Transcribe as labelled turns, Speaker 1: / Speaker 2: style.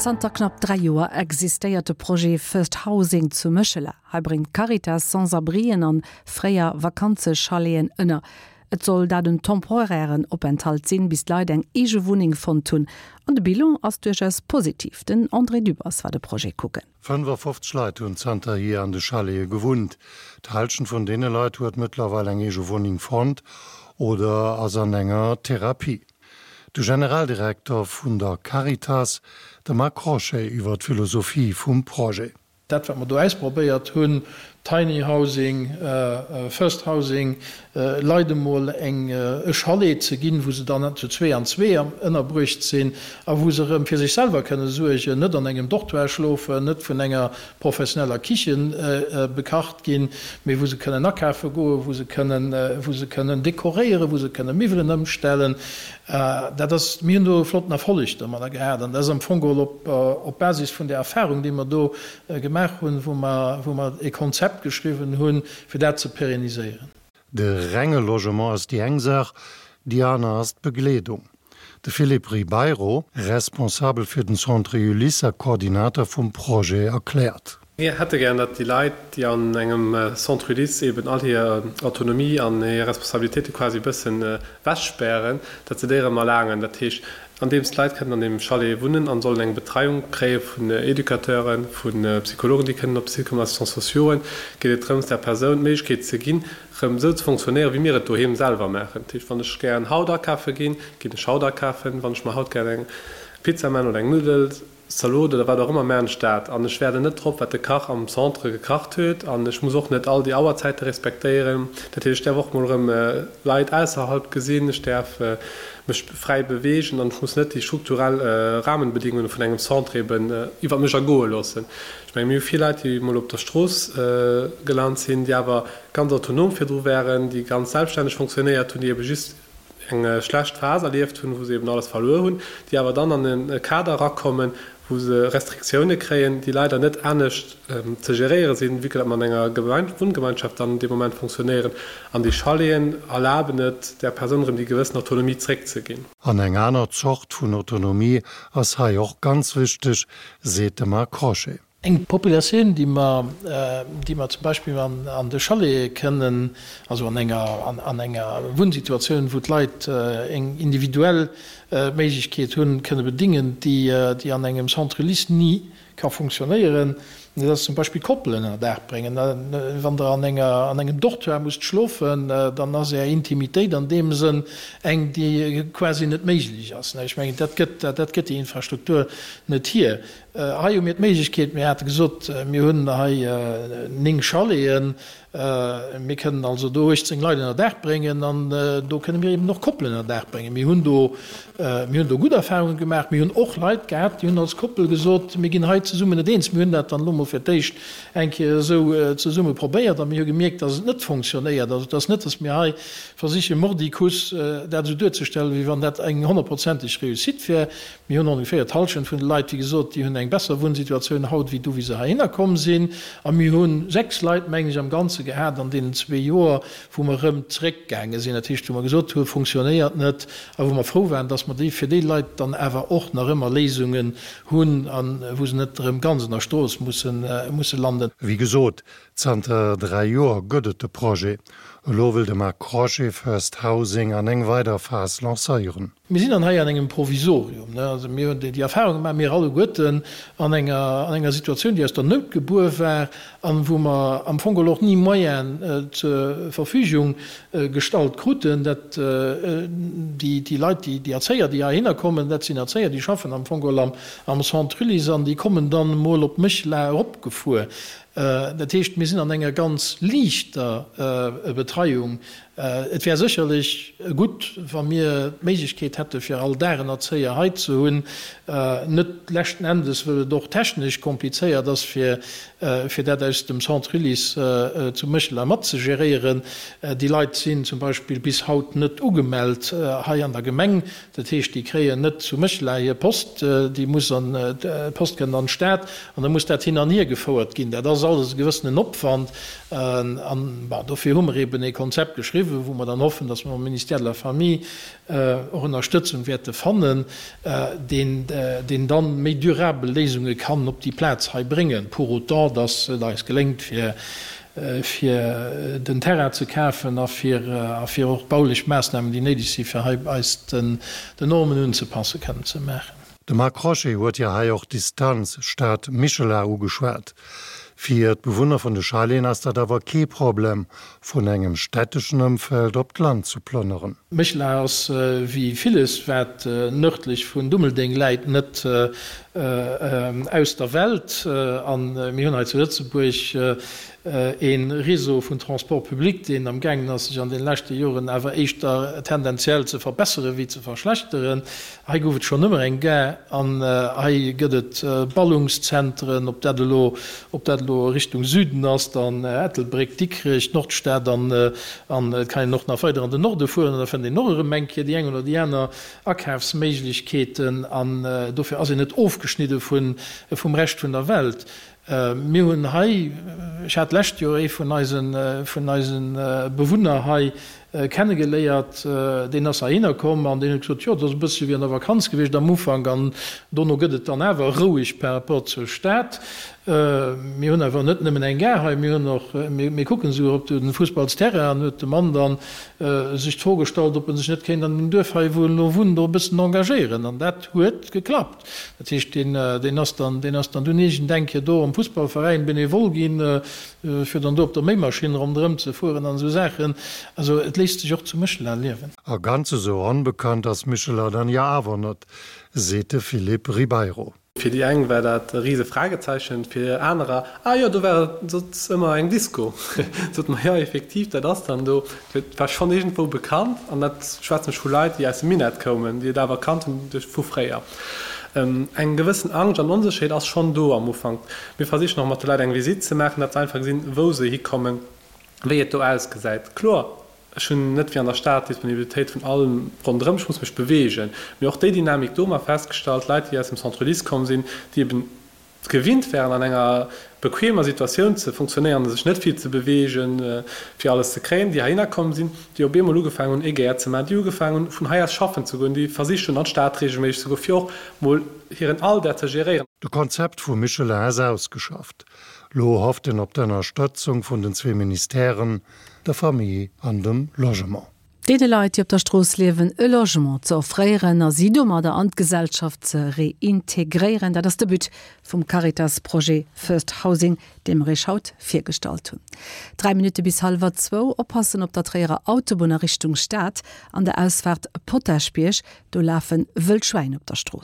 Speaker 1: Zanter knapp 3 Joer existéiert de Projet First Housing zu Méchela. Hei bréngt d'Caritas Sans-abrien an fréier Vakanzechaleten ënner. Et soll dat en temporairen Openthalt sinn, bis d'Leit eng eege Wunneng fonnt hunn. An de Bilan ass duerchaus positiv. Den André Dübbers war de Projet kucken.
Speaker 2: 55 Leit hunn zanterhier an de Chalete gewunnt. D'Hallschent vun deene Leit huet mëttlerweil eng eege Wunneng fonnt oder ass an enger Therapie. De Generaldirekter vun der Caritas, de Marc Crochet iwwer d'Philosophie vum Projet.
Speaker 3: Dat, wat mer do ausprobéiert hunn, Tiny Housing, First Housing, Leit emol eng e Chalet ze ginn, wou se dann zu zwee an zwee ënnerbruecht sinn a wou se erëm fir sech selwer kënne suergen, net an engem Dortoir schlofen, net vun enger professioneller Kichen bekacht ginn, mee wou se kënnen akafe goen, wou se kënnen, wou se kënnen dekoréieren, wou se kënne Miwwelen ëmstellen. Dat ass, mir hunn do e flotten Erfolleg domadder gehat an dat ass am Fong geholl op, op Basis vun där Erfahrung, déi mer do gemaach hunn, wou mer, wou mer e Konzept geschriwwen hunn, fir dat ze pérenniséieren.
Speaker 2: De renge Logement ass déi eng Saach, déi aner ass d'Begleedung. De Philippe Ribeiro, Responsabel fir den Centre Ulysse a Koordinator vum Projet erkläert.
Speaker 4: Mir hätte gären, datt déi Leit, déi an engem Centre Ulysse eben all hir Autonomie an hir Responsabilitéite quasi e bëssen wechspären, datt se déi erëm erlaangen. Dat heescht, andeems d'Leit kënnen an deem Chalet wunnen an sollen eng Betreiung kréie vun Educateuren, vu Psychologen, déi kënnen op de Site kommen, Assistants sociauxen, geet et drëms, der Persoun d'Méiglechkeet ze ginn, erëm esou ze fonctionnéieren, wéi mir et doheem selwer maachen. Dat heescht, wann ech gären haut akafe ginn, ginn ech haut akafen. Wann ech mer haut gären eng Pizza maachen oder eng Nuddel, Zalot oder wat och ëmmer, maan ech dat an ech wäerden net drop, wat de Kach am Centre gekacht huet an ech muss och net all déi Auerzäite respektéieren. Dat heescht, ech däerf och mol erëm Leit ausserhalb gesinn, ech däerf mech fräi beweegen an ech muss net déi strukturell Rahmenbedingungen vun engem Centre eben iwwert mech ergoe loossen. Ech mengen, mir hu vill Leit, déi mol op der Strooss gelant sinn, déi awer ganz autonom virdru waren, déi ganz selbststänneg fonctionnéiert hunn, déi ebe just eng schlecht Phas erlieft hunn, wou se eben alles verluer hunn, déi awer dann an e Kader erakommen, wou se Restriktioune kréien, déi leider net anescht ze geréiere sinn, vue que datt mer an enger Wunngemeinschaft dann dee Moment fonctionnéieren. An déi Chaleten erlaben et där Persoun erëm déi gewëssen Autonomie zréckzeginn.
Speaker 2: An eng aner Zort vun Autonomie ass hei och ganz wichteg, seet de Marc Crochet.
Speaker 3: Eng Populatioun, déi mer, déi mer zum Beispill an de Chalete kënnen, also an enger, an enger Wunnsituatioun, wou d'Leit eng individuell Méiglechkeet hunn, kënne bedingen, déi, déi an engem Centre Ulysse ni ka funktionéieren, dat ass zum Beispill Koppelen ënner Daach bréngen. Wann Der an enger, an engem Dortoir musst schlofen, dann ass Är Intimitéit an deem Sënn eng, déi quasi net méiglech ass. Ech mengen, dat gëtt, dat gëtt déi Infrastruktur net hier. Hei hu mir d'Méiglechkeet, mir hate gesot, mir hunn hei 9 Chaleten, mir kënnen also do 18 Leit ënner Daach bréngen an do kënne mir eben och Koppelen ënner Daach bréngen. Mir hunn do, mir hunn do gutt Erfahrunge gemaach. Mir hunn och Leit gehat, déi hunn als Koppel gesot, mir ginn hei zesummen net eens. Mir hunn dat dann elo mol fir d'éischt eng Kéier esou zesumme probéiert a mir hu gemierkt, dass et net fonctionnéiert. Also et ass net, dass mir hei versiche mordicus dat esou duerzestellen, wéi wann dat eng honnertprozenteg Réussite wär. Mir hunn ongeféier d'Hallschent vun de Leit, wéi gesot, déi hunn eng besser Wunnsituatioun haut wéi du, wéi se heihinner komm sinn. A mir hu 6 Leit, mengen ech, am Ganze gehat an deenen zwee Joer, wou mer erëm zeréckgaange sinn, dat heescht, wou mer gesot hu funktionéiert net a wou mer frou waren, dass mer déi fir déi Leit dann awer och nach ëmmer Léisungen hunn a wou se net erëm ganz an der Strooss mussen, musse landen.
Speaker 2: Wéi gesot, zanter 3 Joer gëtt et de Projet. Elo wëll de Marc Crochet First Housing an eng weider Phas lancéieren.
Speaker 3: Mir sinn dann hei an engem Provisorium. Also mir hunn déi Erfahrung gemaach, mir alleguerten, an enger, an enger Situatioun, déi aus der Nout gebuer war an wou mer am Fong geholl och ni Moyenen zur Verfügung gestallt kruten. Dat, déi, déi Leit, déi, déi Erzéier, déi heihinner kommen, dat sinn Erzéier, déi schaffen am Fong geholl am, am Centre Ulysse an déi kommen dann emol op Méchela eropgefuer. Dat heescht, mir sinn an enger ganz liichter Betreiung. Et wär sécherlech gutt, wa mir d'Méiglechkeet hätte fir all Dag en Erzéier hei ze hunn, net leschten Endes wëll et och technesch komplizéiert ass, fir fir dat aus dem Centre Ulysse zu Méchela mat ze geréieren. Déi Leit sinn zum Beispill bis haut net ugemellt hei an der Gemeng. Dat heescht, déi kréien net zu Méchela hir Post, déi muss an, d'Post kënnt an d'Stad an da muss dat hin an hier gefouert ginn. Dat ass alles e gewëssenen Opwand an, bon, dofir hu mer eben ee Konzept geschriwwen. ënnerschriwwen, wou mer dann hoffen, dass mer am Ministère de la Famille och Ënnerstëtzung wäerte fannen, deen, deen dann méi durabel Léisunge kann op déi Plaz hei bréngen, pour autant dass et eis geléngt, fir, fir den Terrain ze kafen a fir, a fir och d'baulech Maassnamen, déi néideg sinn, fir hei eis den, den Normen unzepassen, kënnen ze maachen.
Speaker 2: De Marc Crochet huet jo hei och d'Distanz Stad-Michela ugeschwat. Fir d'Bewunner vun de Chaleten ass dat awer kee Problem, vun engem städteschen Ëmfeld op d'Land zu plënneren.
Speaker 3: Méchela ass, wéi villes wat nërdlech vun Dummeldeng läit, net aus der Welt. A mir hunn hei zu Lëtzebuerg ee Réseau vun Transports publics, deen am gaangen ass, sech an deene leschte Joren awer éischter tendenziell ze verbessere wéi ze verschlechteren. Hei gouf et schonn ëmmer eng Gare an hei gëtt et Ballungszentren, ob dat elo, ob dat elo Richtung Süden ass, dann Ettelbréck, Dikrech, d'Nordstad an an et kann een och nach weider an den Norde fueren an da fënnt een och erëm eng Kéier déi eng oder déi aner Akafsméiglechkeeten an dofir ass een net ofgeschnidde vun, vum Rescht vun der Welt. Mir hunn hei, ech hat d'lescht Joer ee vun eisen, vun eisen Bewunner hei kennegeléiert, deen ass heihinner komm an deen huet gesot, jo, et ass e bëssche wéi an der Vakanz gewiescht am Ufank an dono gëtt et dann awer roueg par rapport zur Stad. Mir hunn awer net nëmmen eng Gare hei, mir hunn och, mir kucken esouguer op de Fussballsterrain an huet de Mann dann sech d'Fro gestallt, ob en sech net kéint an deem Duerf hei, wou en elo wunnt, och e bëssen engagéieren an dat huet geklappt. Dat heescht, deen, deen ass dann, deen ass dann dunn iergendeng Kéier do am Fussballveräin Benevole ginn, fir dann do op der Méimaschinn ronderëm ze fueren an esou Saachen. Also et léisst sech och zu Méchela liewen.
Speaker 2: A ganz esou onbekannt ass Michela dann jo awer net, seet de Philippe Ribeiro.
Speaker 4: Fir déi eng war dat e rise Fragezeichen, fir anerer, ah jo, do war et soss ëmmer eng Disco. Sot mer, jo effektiv, dat ass dann do. Et war schonn iergendwou bekannt, an dat schwätzen ech vu Leit, déi aus dem Minett koumen, déi et awer kannt hunn duerch vu fréier. Eng gewëssen Angscht an Onsécherheet ass schonn do am Ufank. Mir versichen och mat de Leit eng Visitt ze maachen, datt se einfach gesinn, wou se hikommen, wéi et do ausgesäit. Kloer, ech hunn net wéi an der Stad d'Disponibilitéit vun allem ronderëm, ech muss mech beweegen. Mee och déi Dynamik do hu mer festgestallt, Leit, déi aus dem Centre Ulysse komm sinn, déi eben gewinnt wären an enger bequemer Situatioun ze funktionéieren, sech net vill ze beweegen, fir alles ze kréien, déi heihinner komm sinn, déi op eemol ugefaangen hunn, e Gäert ze maachen, déi ugefaangen hunn, vun hei aus schaffen ze goen, déi versicht hunn, an d'Stad reegelméisseg ze goen, fir och mol hiren Alldag ze geréieren.
Speaker 2: De Konzept vu Michelin ass ausgeschafft. Lo hofft een op d'Ënnerstëtzung vun den zwee Ministèren, der Famille an dem Logement.
Speaker 1: Deene Leit, déi op der Strooss liewen, e Logement ze offréieren a si domadder an d'Gesellschaft ze reintegréieren, dat ass de But vum Caritas-Projet First Housing, dee mer Iech haut virgestallt hunn. 3 Minutte bis hallwer zwou. Oppassen op der Tréierer Autobunn a Richtung Stad, an der Ausfaart Potaschbierg, do lafe wëll Schwäin op der Strooss.